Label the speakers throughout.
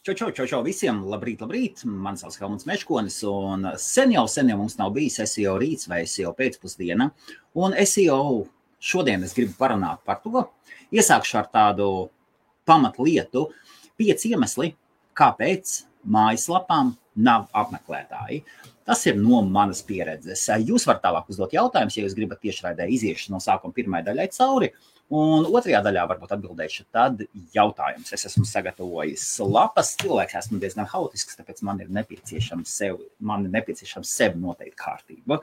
Speaker 1: Čau visiem, labrīt. Mani sauc Helmuts Meškonis, un sen jau mums nav bijis SEO rīts vai SEO pēcpusdiena. Un SEO šodien es gribu parunāt par to. Iesākšu ar tādu pamatlietu, 5 iemesli, kāpēc mājaslapām nav apmeklētāji. Tas ir no manas pieredzes. Jūs varat tālāk uzdot jautājumus, ja jūs gribat tiešraidē iziešu no sākuma pirmai daļai cauri. Un otrajā daļā varbūt atbildēšu tad jautājums. Es esmu sagatavojis lapas, cilvēks esmu diezgan haotisks, tāpēc man ir nepieciešams sev noteikt kārtību,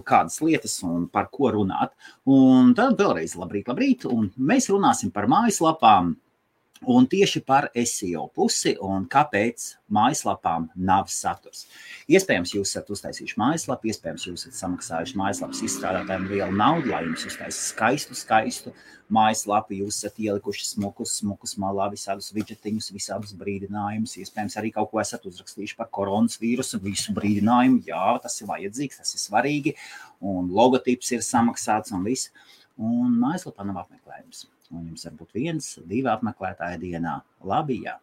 Speaker 1: kādas lietas un par ko runāt. Un tad vēlreiz labrīt, un mēs runāsim par mājaslapām un tieši par SEO pusi un kāpēc mājaslapām nav saturs. Iespējams, jūs esat uztaisījuši mājaslapu, iespējams, jūs esat samaksājuši mājaslapas izstrādātājiem lielu naudu, lai jums uztaisīs skaistu mājaslapu, jūs esat ielikuši smukus malā, visādus widgetiņus, visādus brīdinājumus, iespējams, arī kaut ko esat uzrakstījuši par koronavīrusu, visu brīdinājumu, jā, tas ir vajadzīgs, tas ir svarīgi, un logotips ir samaksāts un viss, un mājaslapā nav apmeklējums. Un jums var būt 1, 2 apmeklētāji dienā. Labi, jā.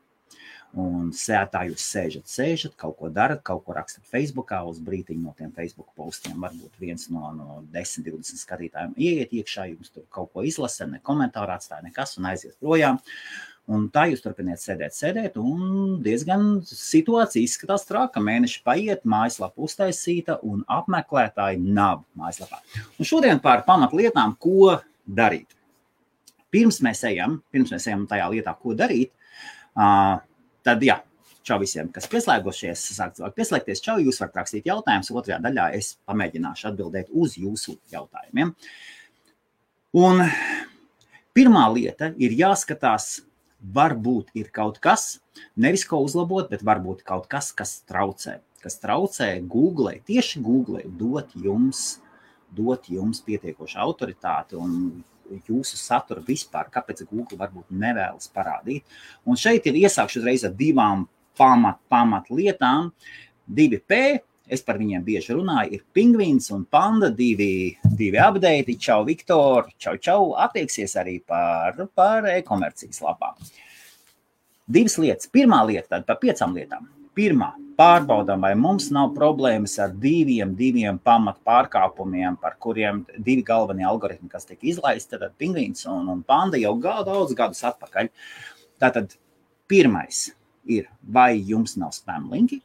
Speaker 1: Un tā jūs sēžat, kaut ko darat, kaut ko rakstat Facebookā, uz brītiņu no tiem Facebook postiem. Varbūt viens no 10, 20 skatītājiem ieiet iekšā, jums tur kaut ko izlasa, ne komentāru atstāja nekas un aiziet projām. Un tā jūs turpiniet sēdēt, un diezgan situācija izskatās traka. Mēneši paiet, mājaslapa uztaisīta un apmeklētāji nav mājaslapā. Un šodien par pamatlietām, ko darīt. Pirms mēs ejam tajā lietā, ko darīt, tad jā, čau visiem, kas pieslēgušies, sāk cilvēki pieslēgties, čau, jūs varat rakstīt jautājumus, otrajā daļā es pamēģināšu atbildēt uz jūsu jautājumiem. Un pirmā lieta ir jāskatās, varbūt ir kaut kas, nevis ko uzlabot, bet varbūt kaut kas, kas traucē Google, tieši Google dot jums pietiekošu autoritāti un jūsu saturu vispār, kāpēc Google varbūt nevēlas parādīt. Un šeit ir iesākšu uzreiz ar 2 pamatlietām. 2P, es par viņiem bieži runāju, ir pingvīns un panda, 2 update, čau Viktor, čau, attieksies arī par e-komercijas lapām. 2 lietas. Pirmā lieta, tad par 5 lietām. Pirmā, pārbaudām, vai mums nav problēmas ar 2 pamat pārkāpumiem, par kuriem 2 galvenie algoritmi, kas tiek izlaisti, tad pingvīns un panda jau daudz gadus atpakaļ. Tātad pirmais ir, vai jums nav spam linki,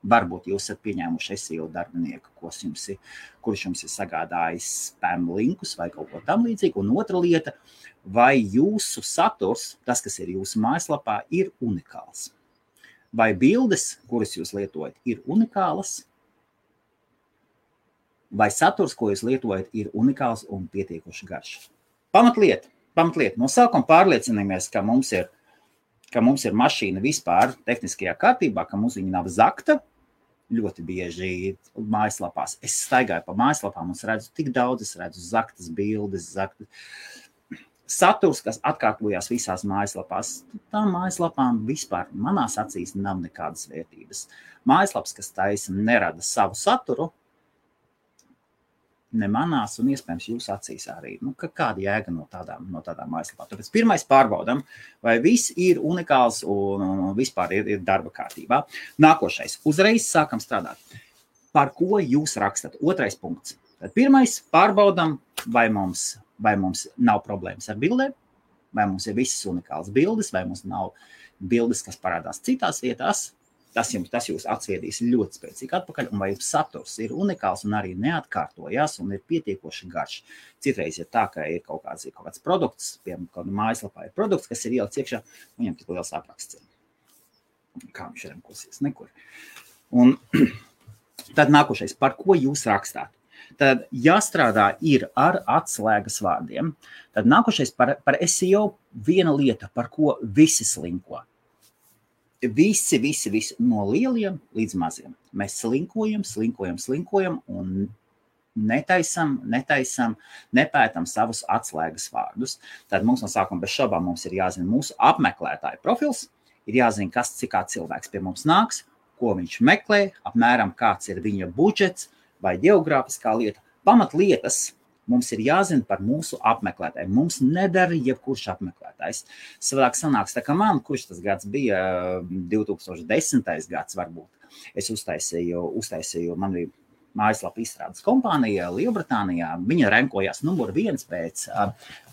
Speaker 1: varbūt jūs esat pieņēmuši SEO darbinieku, kurš jums ir sagādājis spam linkus vai kaut ko tam līdzīgi. Un otra lieta, vai jūsu saturs, tas, kas ir jūsu mājaslapā, ir unikāls. Vai bildes, kuras jūs lietojat, ir unikālas, vai saturs, ko jūs lietojat, ir unikāls un pietiekoši garš. Pamatlieta. No sākuma pārliecinamies, ka mums ir mašīna vispār tehniskajā kārtībā, ka mums viņa nav zakta. Ļoti bieži mājaslapās. Es staigāju pa mājaslapām un redzu tik daudz, es redzu zaktas bildes, saturs, kas atkārtojās visās mājaslapās, tām mājaslapām vispār manās acīs nav nekādas vērtības. Mājaslaps, kas taisa, nerada savu saturu, ne manās un iespējams jūsu acīs arī. Kāda jēga no tādām mājaslapām? Tāpēc pirmais pārbaudam, vai viss ir unikāls un vispār ir darba kārtībā. Nākošais, uzreiz sākam strādāt. Par ko jūs rakstat? Otrais punkts. Tad pirmais pārbaudam, vai mums nav problēmas ar bildēm, vai mums ir visas unikālas bildes, vai mums nav bildes, kas parādās citās vietās. Tas jūs atsviedīs ļoti spēcīgi atpakaļ, un vai jums saturs ir unikāls un arī neatkārtojās un ir pietiekoši garš. Citreiz ir tā, ka ir kaut kāds produkts, piemēram, kāda mājaslapā ir produkts, kas ir ielikts iekšā, viņam tik liels apraksts. Kā viņš remkosies? Nekur. Un tad nākošais, par ko jūs rakstāt? Tad jāstrādā ir ar atslēgas vārdiem. Tad nākošais par SEO viena lieta, par ko visi slinko. Visi no lieliem līdz maziem. Mēs slinkojam un nepētam savus atslēgas vārdus. Tad mums no sākuma bez šaubām mums ir jāzina mūsu apmeklētāju profils, ir jāzina, kā cilvēks pie mums nāks, ko viņš meklē, apmēram kāds ir viņa budžets, vai geogrāfiskā lieta. Pamatlietas mums ir jāzina par mūsu apmeklētājiem. Mums nedara jebkurš apmeklētājs. apmeklētājs. Savādāk sanāks, tā kā man, kurš tas gads bija 2010. gads varbūt, es uztaisīju man bija mājaslapa izstrādes kompānija Lielbritānijā. Viņa renkojās numur 1 pēc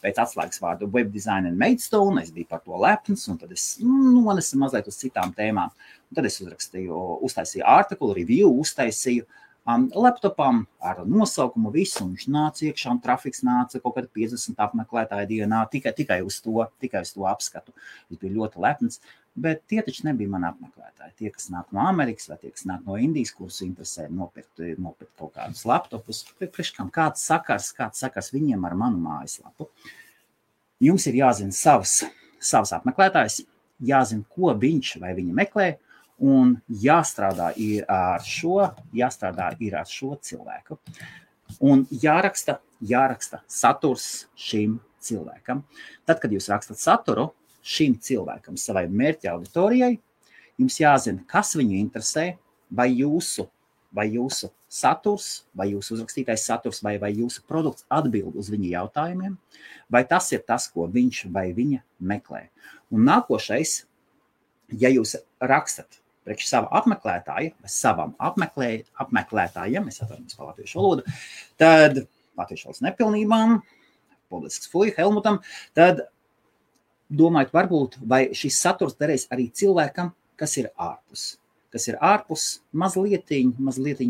Speaker 1: atslēgas vārdu Web Design and Maidstone. Es biju par to lepns, un tad es nonesu mazliet uz citām tēmām. Un tad es uztaisīju artikulu, review, uztaisīju laptopam ar nosaukumu visu, un viņš nāca iekšā, un trafiks nāca kaut kādā 50 apmeklētāju dienā, tikai uz to apskatu. Es biju ļoti lepns. Bet tie taču nebija mani apmeklētāji. Tie, kas nāk no Amerikas vai tie, kas nāk no Indijas, kurus interesē nopirkt kaut kādus laptopus. Kāds sakars viņiem ar manu mājaslapu? Jums ir jāzina savs apmeklētājs, jāzina, ko viņš vai viņa meklē, un jāstrādā ir ar šo cilvēku. Un jāraksta saturs šim cilvēkam. Tad, kad jūs rakstat saturu, šim cilvēkam, savai mērķa auditorijai, jums jāzina, kas viņu interesē, vai jūsu saturs, vai jūsu uzrakstītais saturs, vai jūsu produkts atbild uz viņa jautājumiem, vai tas ir tas, ko viņš vai viņa meklē. Un nākošais, ja jūs rakstat priekš sava apmeklētāja, vai savam apmeklētājiem, es atvainojos par latviešu valodu, tad latviešu valodas nepilnībām, publisks fuj, Helmutam, tad domājot, varbūt, vai šis saturs derēs arī cilvēkam, kas ir ārpus, mazliet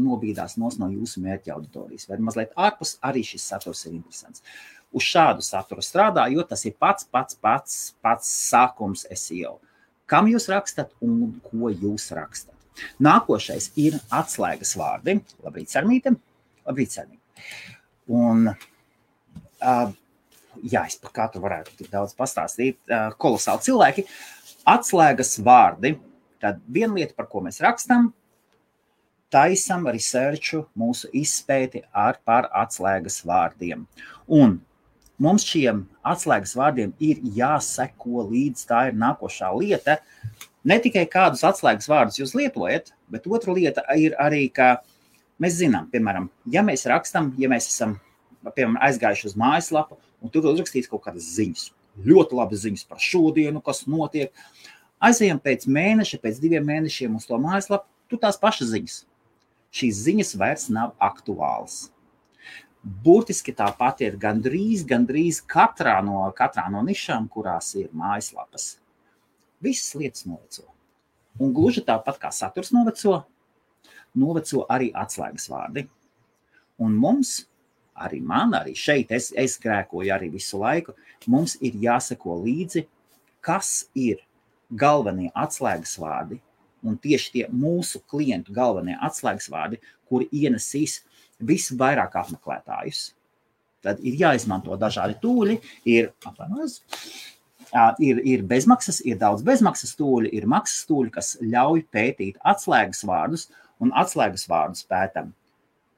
Speaker 1: nobīdās no jūsu mērķa auditorijas, vai mazliet ārpus arī šis saturs ir interesants. Uz šādu saturu strādā, jo tas ir pats sākums SEO. Kam jūs rakstat un ko jūs rakstat? Nākošais ir atslēgas vārdi. Labrīt, Sarmīte. Un es par katru varētu tik daudz pastāstīt, kolosāli cilvēki. Atslēgas vārdi, tad viena lieta, par ko mēs rakstam, taisam researchu, mūsu izpēti par atslēgas vārdiem. Un mums šiem atslēgas vārdiem ir jāseko līdz, tā ir nākošā lieta. Ne tikai kādus atslēgas vārdus jūs lietojat, bet otra lieta ir arī, ka mēs zinām, piemēram, ja mēs esam, piemēram, aizgājuši uz mājaslapu, un tur uzrakstīts kaut kādas ziņas. Ļoti labas ziņas par šodienu, kas notiek. Aizejam pēc mēneša, pēc 2 mēnešiem uz to mājaslapu, tur tās pašas ziņas. Šīs ziņas vairs nav aktuālas. Burtiski tāpat ir gandrīz katrā no nišām, kurās ir mājaslapas. Visas lietas noveco. Un gluži tāpat kā saturs noveco arī atslēgas vārdi. Un mums, arī šeit, es grēkoju arī visu laiku, mums ir jāseko līdzi, kas ir galvenie atslēgas vārdi, un tieši tie mūsu klientu galvenie atslēgas vārdi, kuri ienesīs visvairāk apmeklētājus. Tad ir jāizmanto dažādi tūļi, ir bezmaksas, ir daudz bezmaksas tūļi, ir maksas tūļi, kas ļauj pētīt atslēgas vārdus, un atslēgas vārdus pētam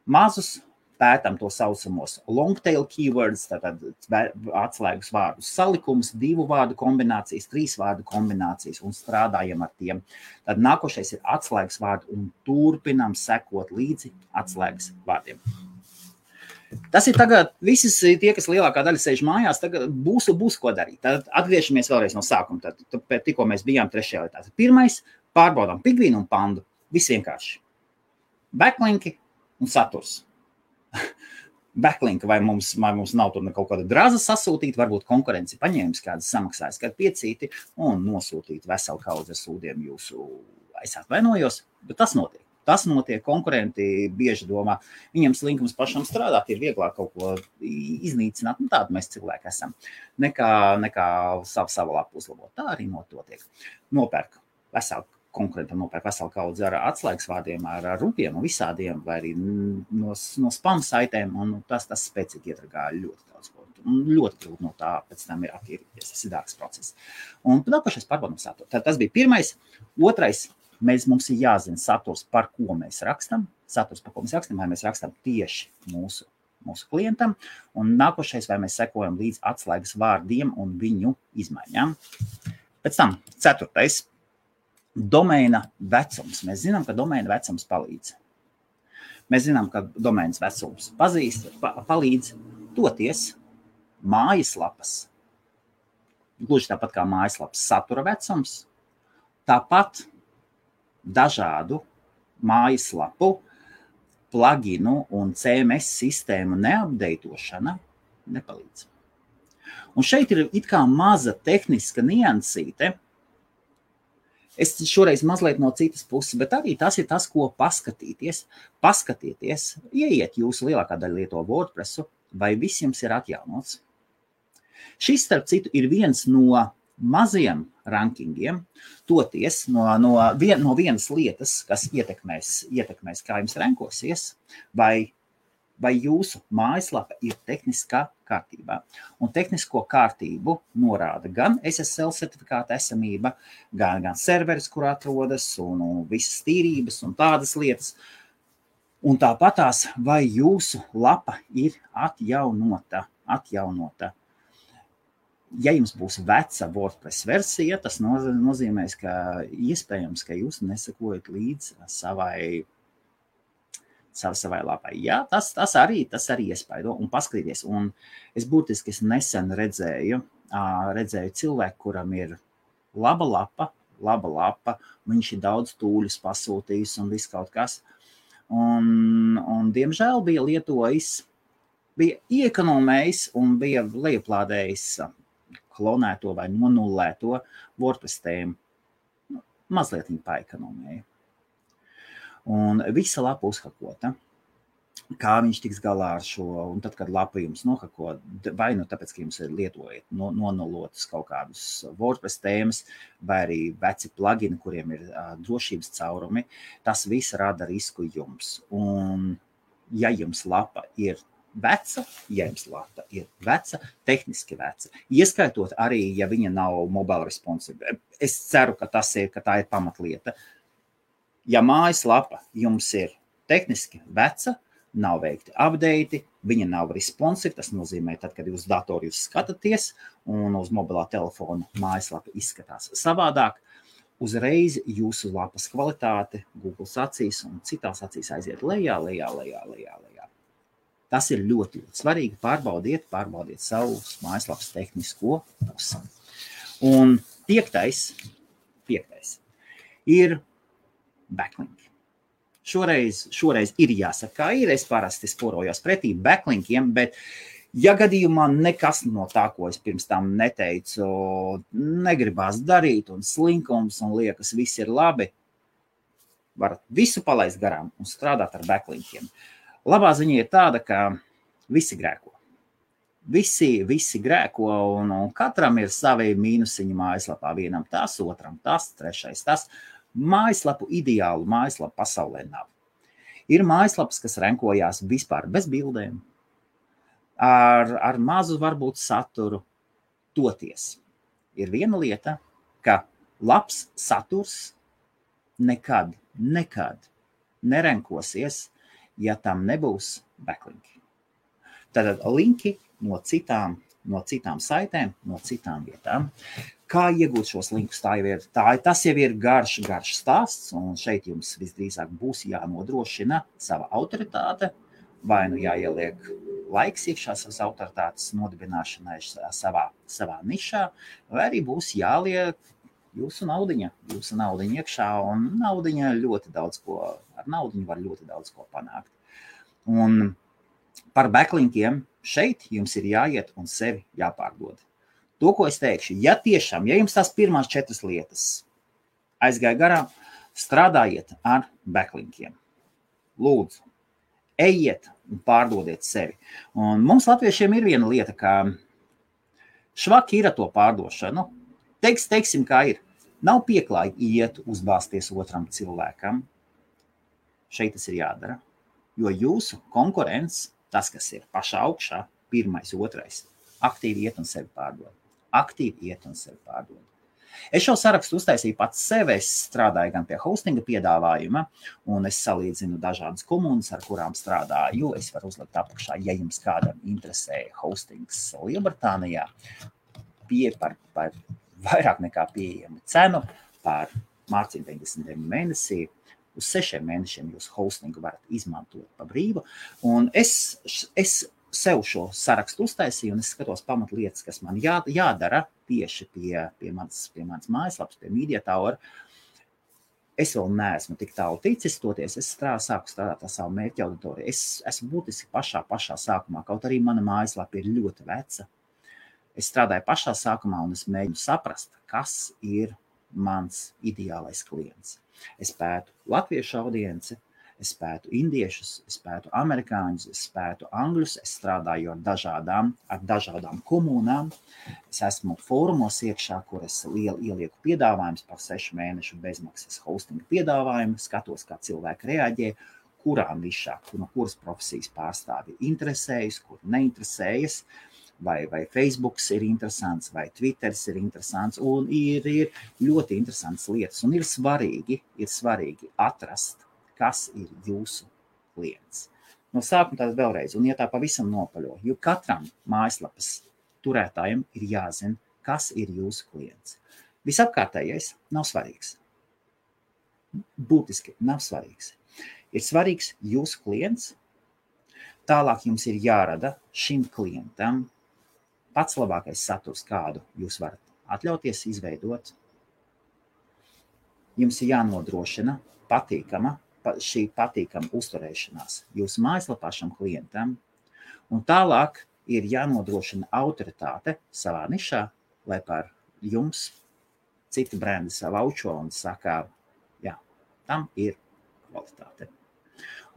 Speaker 1: mazus, pētam to saucamos long tail keywords, tātad atslēgas vārdus salikums, 2 vārdu kombinācijas, 3 vārdu kombinācijas un strādājam ar tiem. Tad nākošais ir atslēgas vārdi un turpinām sekot līdzi atslēgas vārdiem. Tas ir tagad, visi tie, kas lielākā daļa sēž mājās, tagad būs ko darīt. Tad atgriežamies vēlreiz no sākuma, tad tikko mēs bijām 3. lietā. Pirmais, pārbaudām Pigvīnu un Pandu, viss vienkārši. Backlinki un saturs. Backlinka, vai mums nav tur kaut kāda draza sasūtīt, varbūt konkurenci paņēmis kādas samaksājas, kādu piecīti un nosūtīt veselu kaudzi ar sūdiem jūsu, es atvainojos, bet tas notiek. Tas notiek, konkurenti bieži domā, viņam slinkums pašam strādāt, ir vieglāk kaut ko iznīcināt, tādu mēs cilvēki esam, nekā savu lapu uzlabot. Tā arī notiek. Konkurentam nopērk veselu kaudzi ar atslēgas vārdiem, ar rupiem un visādiem, vai arī no spam saitēm, un tas spēcīgi iedragā ļoti daudz ko. Ļoti grūti no tā pēc tam ir attīrīties, tas ir dārgs process. Un nākošais pārbaudām saturu. Tas bija pirmais. Otrais, mums ir jāzina saturs, par ko mēs rakstam. Vai mēs rakstam tieši mūsu klientam. Un nākošais, vai mēs sekojam līdz atslēgas vārdiem un viņu izmaiņām. Pēc tam 4. Domēna vecums. Mēs zinām, ka domēna vecums palīdz. Mēs zinām, ka domēnas vecums palīdz toties mājaslapas gluži tāpat kā mājaslapas satura vecums, tāpat dažādu mājaslapu, pluginu un CMS sistēmu neapdeitošana nepalīdz. Un šeit ir it kā maza tehniska niansīte. Es šoreiz mazliet no citas puses, bet arī tas ir tas, ko paskatīties. Paskatieties, ieiet jūsu lielākā daļa lieto WordPressu, vai viss jums ir atjaunots. Šis, starp citu, ir viens no maziem rankingiem, toties no vienas lietas, kas ietekmēs, kā jums rankosies, vai jūsu mājaslapa ir tehniskā kārtībā. Un tehnisko kārtību norāda gan SSL certifikāta esamība, gan serveris, kur atrodas, un visas tīrības un tādas lietas. Un tāpatās, vai jūsu lapa ir atjaunota. Ja jums būs veca WordPress versija, tas nozīmēs, ka iespējams, ka jūs nesakojat līdz savai lapai. Jā, tas arī iespaido. Un paskatīties, un es burtiski nesen redzēju cilvēku, kuram ir laba lapa, viņš ir daudz tūļus pasūtījis un viss kaut kas. Un diemžēl bija lietojis, bija iekonomējis un bija lejuplādējis klonēto vai nonullēto WordPress tēmu. Mazliet viņa paekonomēja. Un visa lapa uzhakota. Kā viņš tiks galā ar šo, un tad, kad lapa jums nohako, vai tāpēc, ka jums ir lietojat nonulotas kaut kādus WordPress tēmas, vai arī veci plugini, kuriem ir drošības caurumi, tas viss rada risku jums. Un ja jums lapa ir veca, tehniski veca, ieskaitot arī, ja viņa nav mobile responsive. Es ceru, ka tā ir pamatlieta. Ja mājaslapa jums ir tehniski veca, nav veikti update, viņa nav responsive, tas nozīmē, tad, kad uz datoru jūs skatāties un uz mobilā telefona mājaslapa izskatās savādāk, uzreiz jūsu lapas kvalitāte Google acīs un citās acīs aiziet lejā. Tas ir ļoti svarīgi. Pārbaudiet savu mājaslapas tehnisko pusi. Un piektais ir backlink. Šoreiz ir jāsaka, kā ir. Es parasti sporojos pretī backlinkiem, bet ja gadījumā nekas no tā, ko es pirms tam neteicu, negribās darīt un slinkums un liekas, viss ir labi, varat visu palaist garām un strādāt ar backlinkiem. Labā ziņa ir tāda, ka visi grēko. Visi grēko un katram ir savi mīnusiņi mājaslapā. Vienam tas, otram tas, trešais tas. Ideālu mājaslapu pasaulē nav. Ir mājaslapas, kas renkojās vispār bez bildēm, ar mazu varbūt saturu. Toties ir viena lieta, ka labs saturs nekad nerenkosies, ja tam nebūs backlinki. Tātad linki no citām saitēm, no citām vietām. Kā iegūt šos linkus? Tas jau ir garš stāsts, un šeit jums visdrīzāk būs jānodrošina sava autoritāte, vai jāieliek laiks iekšā savas autoritātes nodibināšanai savā nišā, vai arī būs jāliek jūsu naudiņa iekšā, un naudiņa ar naudiņu var ļoti daudz ko panākt. Un par backlinkiem šeit jums ir jāiet un sevi jāpārdod. To, ko es teikšu, ja jums tās pirmās 4 lietas aizgāja garām, strādājiet ar backlinkiem. Lūdzu, ejiet un pārdodiet sevi. Un mums latviešiem ir viena lieta, ka švaki ir ar to pārdošanu. Teiksim, kā ir. Nav pieklājīgi iet uzbāzties otram cilvēkam. Šeit tas ir jādara. Jo jūsu konkurents, tas, kas ir pašā augšā, pirmais, otrais, aktīvi iet un sevi pārdod. Es šo sarakstu uztaisīju pats sev, es strādāju gan pie hostinga piedāvājuma, un es salīdzinu dažādas komunas, ar kurām strādāju. Es varu uzlikt apakšā, ja jums kādam interesē hostings Lielbritānijā, par vairāk nekā pieejamu cenu, par mārciņu 99 mēnesī. Uz 6 mēnešiem jūs hostingu varat izmantot pa brīvu. Un es sev šo sarakstu uztaisīju, un es skatos pamatlietas, kas man jādara tieši pie manas mājaslapas, pie Media Tower. Es vēl neesmu tik tālu ticis, toties es sāku strādāt ar savu mērķa auditoriju. Es esmu būtiski pašā sākumā, kaut arī mana mājaslapa ir ļoti veca. Es strādāju pašā sākumā un es mēģinu saprast, kas ir mans ideālais klients. Es pētu latviešu audienci, es pētu indiešus, es pētu amerikāņus, es pētu angļus, es strādāju ar dažādām komunām. Es esmu fórumos iekšā, kur es ielieku piedāvājumus par 6 mēnešu bezmaksas hostinga piedāvājumu, skatos, kā cilvēki reaģē, kurā nišā, no kuras profesijas pārstāvi interesējas, kur neinteresējas, vai Facebooks ir interesants, vai Twitters ir interesants, un ir ļoti interesants lietas, un ir svarīgi atrast, kas ir jūsu klients. No sākuma tādas vēlreiz, un ja tā pavisam nopaļo, jo katram mājaslapas turētājiem ir jāzina, kas ir jūsu klients. Visapkārtējais nav svarīgs. Būtiski nav svarīgs. Ir svarīgs jūsu klients, tālāk jums ir jārada šim klientam pats labākais saturs, kādu jūs varat atļauties izveidot. Jums ir jānodrošina šī patīkama uzturēšanās jūsu mājaslapā šam klientam, un tālāk ir jānodrošina autoritāte savā nišā, lai par jums citi brendi savaučo un saka, jā, tam ir kvalitāte.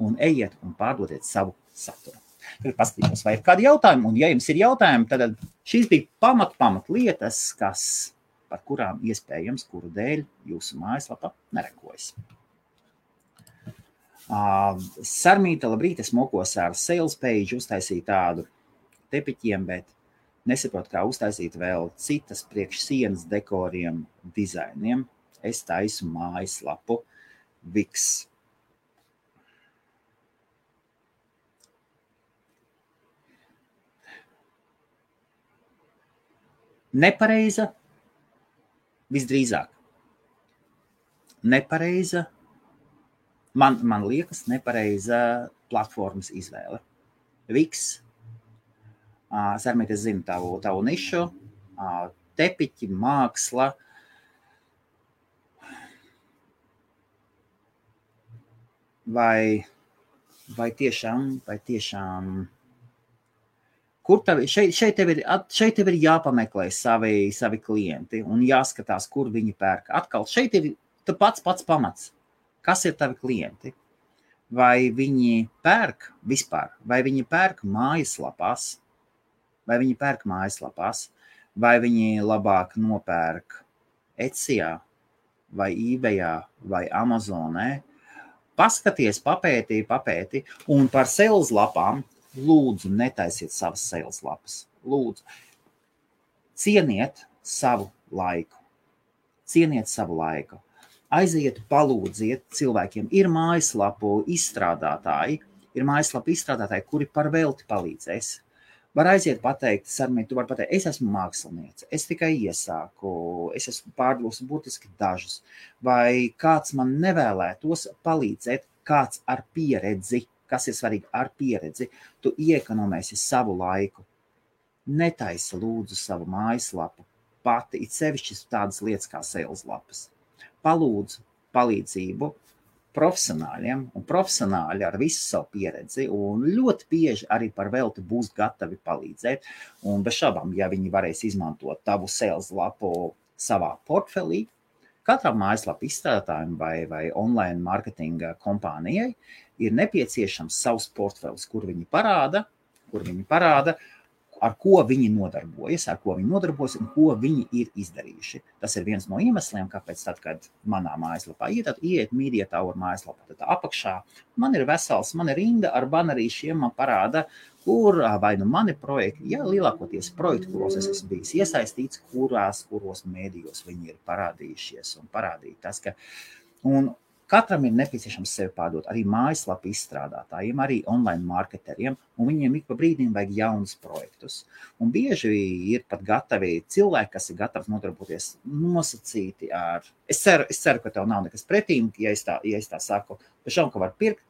Speaker 1: Un ejiet un pārdodiet savu saturu. Tagad paskatīšos, vai ir kādi jautājumi, un ja jums ir jautājumi, tad šīs bija pamat lietas, par kurām iespējams, kuru dēļ jūsu mājaslapa nerekojas. Sarmīta, labrīt, es mokos ar sales page, uztaisīju tādu tepiķiem, bet nesaprotu, kā uztaisīt vēl citas priekš sienas dekoriem, dizainiem. Es taisu mājaslapu Wix. Nepareiza, visdrīzāk. Nepareiza, man liekas, nepareiza platformas izvēle. Wix, Sarmīt, es zinu tavu nišu, tepiķi, māksla. Vai tiešām kur šeit tev ir jāpameklē savi klienti un jāskatās, kur viņi pērk. Atkal, šeit ir pats pamats. Kas ir tavi klienti? Vai viņi pērk vispār? Vai viņi pērk mājaslapās? Vai viņi labāk nopērk Etsijā, vai eBayā, vai Amazonē? Paskaties, papēti, un par sales lapām lūdzu, netaisiet savas sales lapas. Lūdzu, cieniet savu laiku. Aiziet, palūdziet cilvēkiem. Ir mājaslapu izstrādātāji, kuri par velti palīdzēs. Var aiziet pateikt, Sarmīt, tu vari pateikt, es esmu māksliniece, es tikai iesāku, es esmu pārdevusi būtiski dažus. Vai kāds man nevēlētos palīdzēt, kāds ar pieredzi, kas ir svarīgi ar pieredzi, tu iekonomēsi savu laiku. Netaisi lūdzu savu mājaslapu pati, it sevišķi tādas lietas kā sales lapas. Palūdzu palīdzību profesionāļiem, un profesionāļi ar visu savu pieredzi, un ļoti bieži arī par velti būs gatavi palīdzēt, un bez šaubām, ja viņi varēs izmantot tavu sales lapu savā portfelī, katram mājaslapu izstrādātājiem vai online marketinga kompānijai ir nepieciešams savs portfelis, kur viņi parāda, ar ko viņi nodarbojas, un ko viņi ir izdarījuši. Tas ir viens no iemesliem, kāpēc tad, kad manā mājaslapā iet Media Tower mājaslapā, tad apakšā man ir rinda ar banerīšiem, man parāda, kur vai nu mani projekti, lielākoties projekti, kuros es esmu bijis iesaistīts, kuros mēdījos viņi ir parādījušies un parādīt tas, ka katram ir nepieciešams sevi pārdot, arī mājaslapu izstrādātājiem, arī online marketeriem, un viņiem ik pa brīdim vajag jaunus projektus. Un bieži ir pat gatavi cilvēki, kas ir gatavi nodarboties nosacīti ar... Es ceru, ka tev nav nekas pretīm, ja es tā saku, bet šau, ka var pirkt,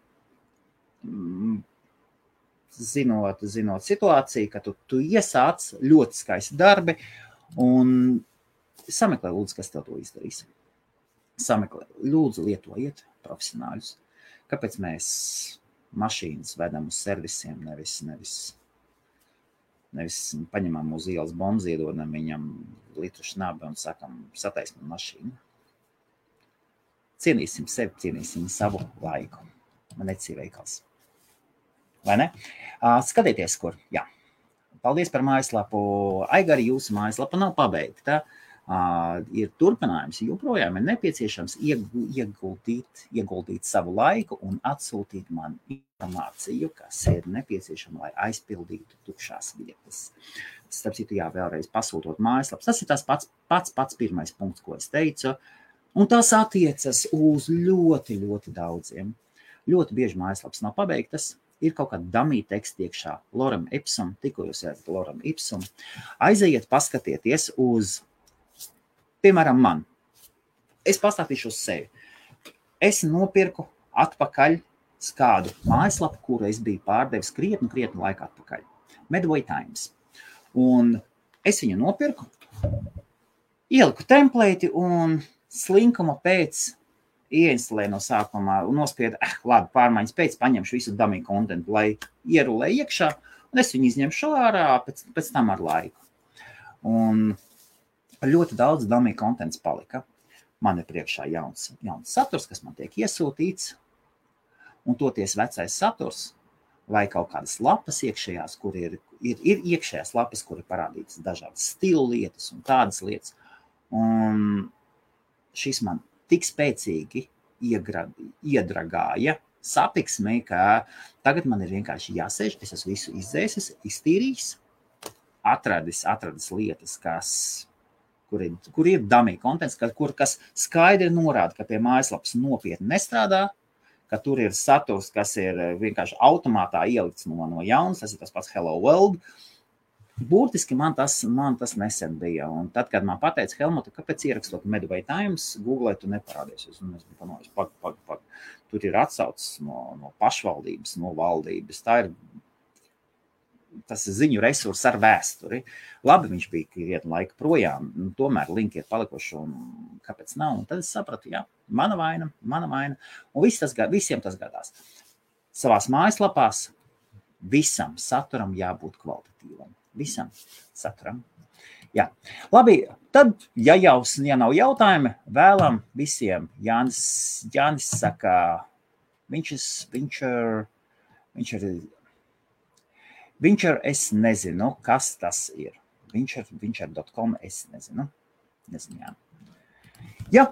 Speaker 1: zinot situāciju, ka tu iesāc ļoti skaisti darbi, Un sameklē, lūdzu, kas tev to izdarīs. Sameklē, lūdzu, lietojiet profesionāļus. Kāpēc mēs mašīnas vedam uz servisiem, nevis paņemam uz ielas bombas, iedodam viņam litru šnabi un sakam, sataisam mašīnu. Cienīsim sevi, cienīsim savu laiku. Man necīja veikals. Vai ne? Skatieties, kur. Jā. Paldies par mājaslapu. Aigari, jūsu mājaslapa nav pabeigta. Ir turpinājums, joprojām ir nepieciešams ieguldīt savu laiku un atsūtīt man informāciju, kas ir nepieciešama, lai aizpildītu tukšās vietas. Starp citu, jā, vēlreiz pasūtot mājaslapas. Tas ir tas pats pirmais punkts, ko es teicu, un tas attiecas uz ļoti, ļoti daudziem. Ļoti bieži mājaslapas nav pabeigtas, ir kaut kāda dummy teksta iekšā, Lorem Ipsum, tikko jūs ejat Lorem Ipsum, aizejiet, paskatieties uz piemēram, man. Es pastāstīšu uz sevi. Es nopirku atpakaļ kādu mājaslapu, kuru es biju pārdevis krietni laiku atpakaļ. Medway Times. Un es viņu nopirku, ieliku templēti un slinkuma pēc ieinstalēju no sākumā un nospiedu, labi, pārmaiņas pēc paņemšu visu dummy kontentu, lai ierulē iekšā, un es viņu izņemšu ārā pēc tam ar laiku. Un ļoti daudz dummy kontents palika. Man ir priekšā jauns saturs, kas man tiek iesūtīts, un toties vecais saturs, vai kaut kādas lapas iekšējās, kur ir iekšējās lapas, kur ir parādītas dažādas stilu lietas un tādas lietas. Un šis man tik spēcīgi iedragāja sapiksmē, ka tagad man ir vienkārši jāsēž, es esmu visu izdzēsis, iztīrījis, atradis lietas, kur ir dummy kontents, kas skaidri norāda, ka pie mājaslapas nopietni nestrādā, ka tur ir saturs, kas ir vienkārši automātā ielikts no jaunas, tas ir tas pats Hello World. Burtiski man tas nesen bija. Un tad, kad man pateica, Helmuta, kāpēc ierakstot Medway Times, Google tu neparādies. Un es biju panojis, pag. Tur ir atsaucis no pašvaldības, no valdības. Tas ir ziņu resurss ar vēsturi. Labi, viņš bija krietni laika projām, tomēr linki ir palikuši, un kāpēc nav? Un tad es sapratu, jā, mana vaina. Un visiem tas gadās. Savās mājaslapās visam saturam jābūt kvalitatīvam. Visam saturam. Jā. Labi, tad, ja nav jautājumi, vēlam visiem. Jānis saka, Vinčer, es nezinu, kas tas ir. Vinčer.com, es nezinu. Jā. Jā.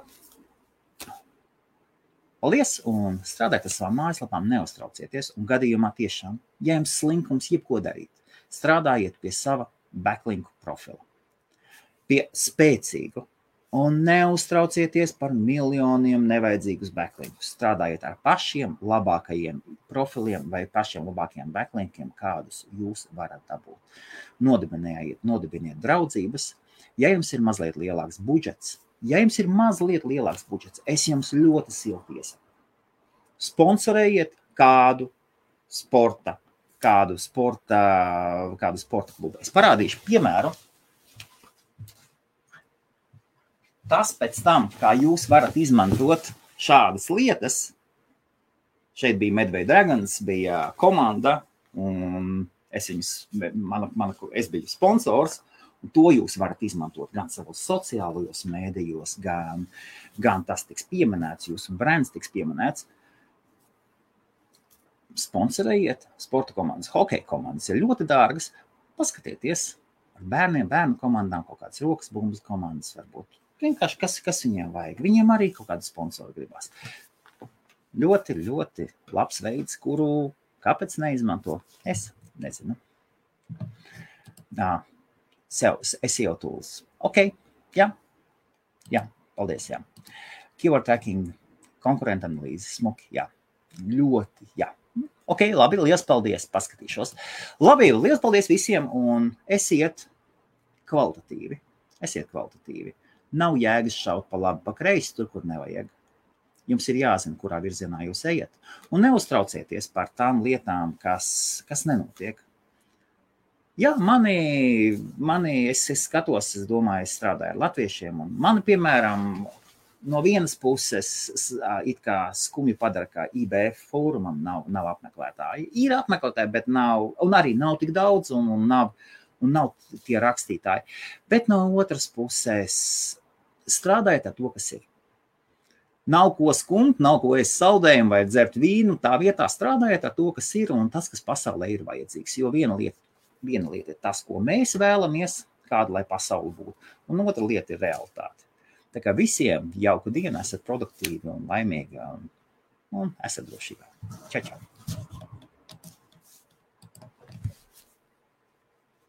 Speaker 1: Paldies un strādājiet ar savām mājaslapām, neuztraucieties. Un gadījumā tiešām, ja jums slinkums jebko darīt, strādājiet pie sava backlinku profila. Pie spēcīgu. Un neuztraucieties par miljoniem nevajadzīgus backlinkus. Strādājiet ar pašiem labākajiem profiliem vai pašiem labākajiem backlinkiem, kādus jūs varat dabūt. Nodibiniet draudzības. Ja jums ir mazliet lielāks budžets, es jums ļoti silti iesaku. Sponsorējiet kādu sporta klubu. Es parādīšu piemēru. Tas pēc tam, kā jūs varat izmantot šādas lietas, šeit bija Medway Dragons, bija komanda, un es biju sponsors, un to jūs varat izmantot gan savos sociālajos mēdījos, gan tas tiks pieminēts, jūsu brands tiks pieminēts. Sponsorējiet sporta komandas, hokeja komandas ir ļoti dārgas. Paskatieties ar bērnu komandām, kaut kādas rokas bumbas komandas varbūt. Vienkārši, kas viņiem vajag. Viņiem arī kaut kādu sponsoru gribās. Ļoti, ļoti labs veids, kuru kāpēc neizmanto? Es nezinu. SEO tools. Ok, jā, paldies, jā. Keyword tracking, konkurenta analīze, smuki, jā. Ļoti, jā. Ok, labi, liels paldies, paskatīšos. Labi, liels paldies visiem un esiet kvalitatīvi. Nav jēgas šaut pa labi, pa kreisi, tur, kur nevajag. Jums ir jāzina, kurā virzienā jūs ejat. Un neuztraucieties par tām lietām, kas nenotiek. Jā, es skatos, es domāju, es strādāju ar latviešiem, un mani, piemēram, no vienas puses it kā skumji padara, ka IBF fórumam nav apmeklētāji. Ir apmeklētāji, bet nav, un arī nav tik daudz, un nav tie rakstītāji. Bet no otras puses strādājiet ar to, kas ir. Nav ko skumt, nav ko ēst saldējumu vai dzert vīnu, tā vietā strādājiet ar to, kas ir, un tas, kas pasaulē ir vajadzīgs. Jo viena lieta ir tas, ko mēs vēlamies, kāda lai pasauli būtu, un otra lieta ir realitāte. Tā kā visiem jauku dienu, esat produktīvi un laimīgi un esat drošībā. Čau, čau!